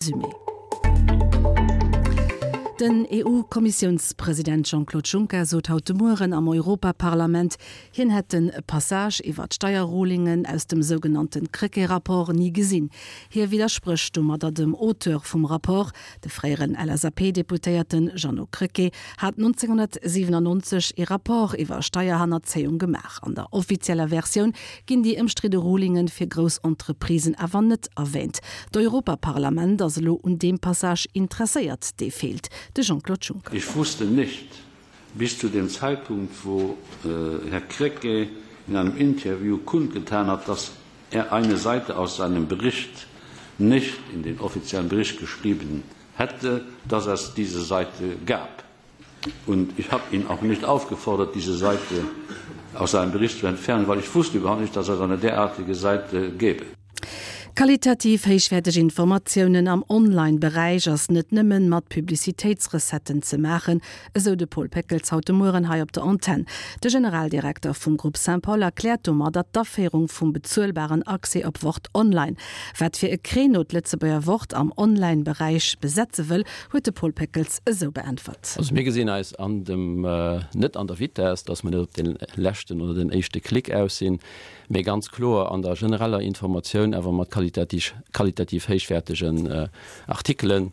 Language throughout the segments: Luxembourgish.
Résumé. Den EU-Kommissiounspresident Jean-Claude Juncker sot haut de Mueren am Europaparlament, hien hätt de Passage iwwer d'Steierrulingen aus dem sougenannte Krecké-Rapport ni gesinn. Hie widdersprécht domadder dem Auteur vum Rapport, De fréieren LSAP-Deputéierte Jeannot Krecké hat 1997 ee Rapport iwwer Steierhannerzéiung gemaach. An der offizieller Versioun ginn déi ëmstridde Rulinge fir grouss Entreprisen awer net erwäänt. D'Europaparlament ass elo un deem Passage interesséiert, dee feelt. De Jean-Claude Juncker. Ich wusste nicht bis zu dem Zeitpunkt, wo Herr Krecké in einem Interview kundgetan hat, dass er eine Seite aus seinem Bericht nicht in den offiziellen Bericht geschrieben hätte, dass es diese Seite gab. Und ich habe ihn auch nicht aufgefordert, diese Seite aus seinem Bericht zu entfernen, weil ich wusste überhaupt nicht, dass es eine derartige Seite gäbe. Qualitativ héichwäerteg Informatiounen am Online-Beräich ass net nëmmen mat Publicitéitsrecetten ze maachen, esou de Paul Péckels haut de Mueren hei op der Antenn. De Generaldirekter vum Groupe Saint-Paul erkläert domadder d'Aféierung vum bezuelbaren Accès op Wort Online. Wat fir e Créneau d'Lëtzebuerger Wort am Online-Beräich besetze wëll, huet de Paul Péckels esou beäntwert. Also mir gesinn eis an dem, net an der Vitess, datt mer net op dee leschten oder den éischte Klick aus sinn, mee ganz kloer an der genereller Informatioun, awer mat qualitativ héichwäertegen Artikelen.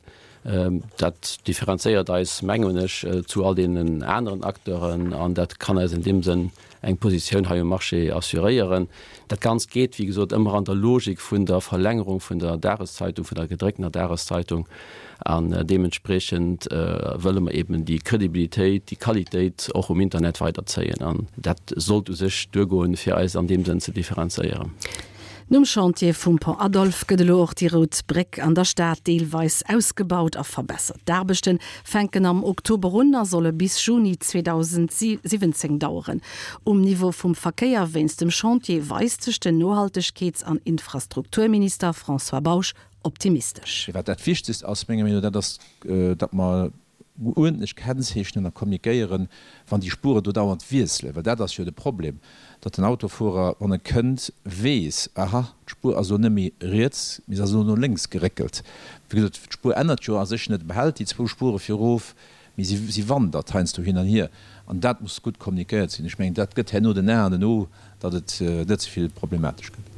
Dat differenzéiert eis, mengen ech, zu all deenen aneren Acteuren an dat kann eis an deem Sënn eng Positioun hei um Marché assuréieren. Dat Ganzt geet, wéi gesot, ëmmer an der Logik vun der Verlängerung vun der Dageszeitung, vun der gedrécktener Dageszeitung. An deementspriechend wëlle mer eben déi Kredibilitéit, déi Qualitéit och um Internet weiderzéien. An dat sollt u sech duergoen, fir eis an deem Sënn ze differenzéieren. Nom Chantier vum Pont Adolphe gëtt elo och déi Rout Bréck an der Stad deelweis ausgebaut a verbessert. D'Aarbechte fänken am Oktober un a solle bis Juni 2017 daueren. Um Niveau vum Verkéier wéinst dem Chantier weist sech den Nohaltegkeets an Infrastrukturminister François Bausch optimistesch. Mee wat dat Wichtegst ass, menger Meenung no, dat ass, datt mer uerdentlech kennzeechnen a kommunikéieren, wann déi Spuren do dauernd wiesselen, well dat ass jo de Problem, datt den Autofuerer, wann e kënnt, weess, aha, d'Spuer ass elo net méi riets, mee se ass elo no lénks geréckelt. Wéi gesot, d'Spuer ännert jo a sech net, e behält déi zwou Spuere fir erof, mee si si wandert heiansdo hin an hier an dat muss gutt kommunikéiert sinn. Ech mengen, dat gëtt herno den A an den O, datt et net ze vill problematesch gëtt.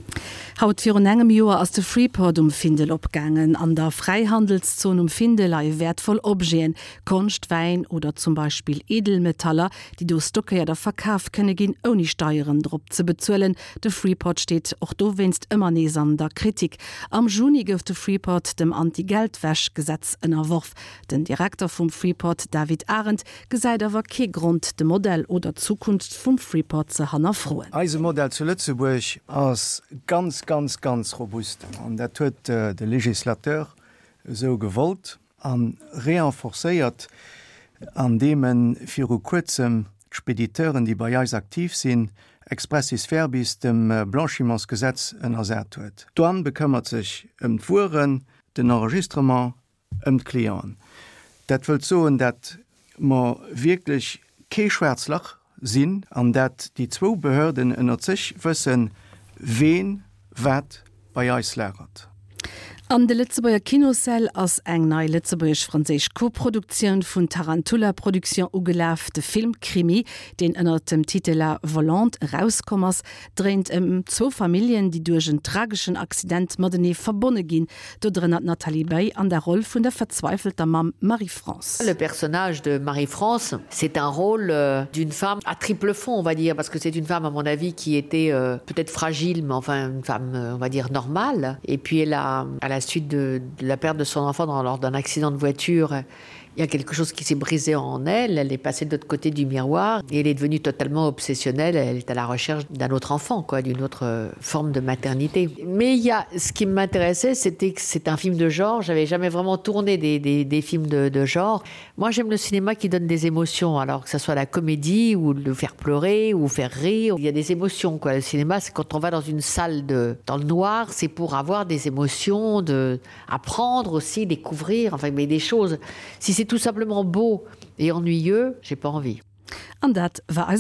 Haut virun engem Joer ass de Freeport um Findel opgaangen. An der Fräihandelszon um Findel leie wäertvoll Objeten, Konscht, Wäin oder zum Beispill Edelmetaller, déi do stockéiert a verkaf kënne ginn, ouni Steieren drop ze bezuelen. De Freeport steet och dowéinst ëmmer nees an der Kritik. Am Juni gouf de Freeport dem Anti-Geldwäsch-Gesetz ënnerworf. Den Direkter vum Freeport David Arendt gesäit awer kee Grond, de Modell oder d'Zukunft vum Freeport ze hannerfroen. Eise Modell zu Lëtzebuerg ass ganz, ganz, ganz robust an dat huet de Législateur esou gewollt a renforcéiert, andeem e viru Kuerzem d'Spediteuren, déi bei eis aktiv sinn, expressis verbis dem Blanchimentsgesetz ënnersat huet. D'Douane bekëmmert sech ëm d'Wueren, den Enregistrement ëm d'Clienten. Dat wëllt soen, dat mer wierklech kee schwaarz Lach sinn an dat déi zwou Behörden ënnert sech wëssen, ween wat bei eis lagert. An de Lëtzebuerger Kinossäll ass eng nei lëtzebuergesch-franséisch Koproduktioun vun Tarantula Production ugelaf. De Film Krimi, deen ënnert dem Titel La Volante erauskomm ass, dréint ëm zwou Familljen, déi duerch en trageschen Accident matenee verbonne ginn. Dodrënner d'Nathalie Baye an der Roll vun der verzweifelter Mamm Marie-France. Le personnage de Marie-France, c'est un rôle euh, d'une femme à triple fond, on va dire, parce que c'est une femme, à mon avis, qui était euh, peut-être fragile, mais enfin une femme, euh, on va dire, normale. Et puis elle a, à la suite de, de la perte de son enfant dans, lors d'un accident de voiture, il y a quelque chose qui s'est brisé en elle, elle est passée de l'autre côté du miroir et elle est devenue totalement obsessionnelle, elle est à la recherche d'un autre enfant quoi, d'une autre euh, forme de maternité. Mais il y a ce qui m'intéressait, c'était que c'est un film de genre, j'avais jamais vraiment tourné des, des, des films de, de genre. Moi j'aime le cinéma qui donne des émotions, alors que ce soit la comédie ou le faire pleurer ou faire rire, il y a des émotions quoi. Le cinéma c'est quand on va dans une salle de dans le noir, c'est pour avoir des émotions de apprendre aussi, découvrir enfin mais des choses. Si c'est tout simplement beau et ennuyeux, j'ai pas envie. An dat war eis.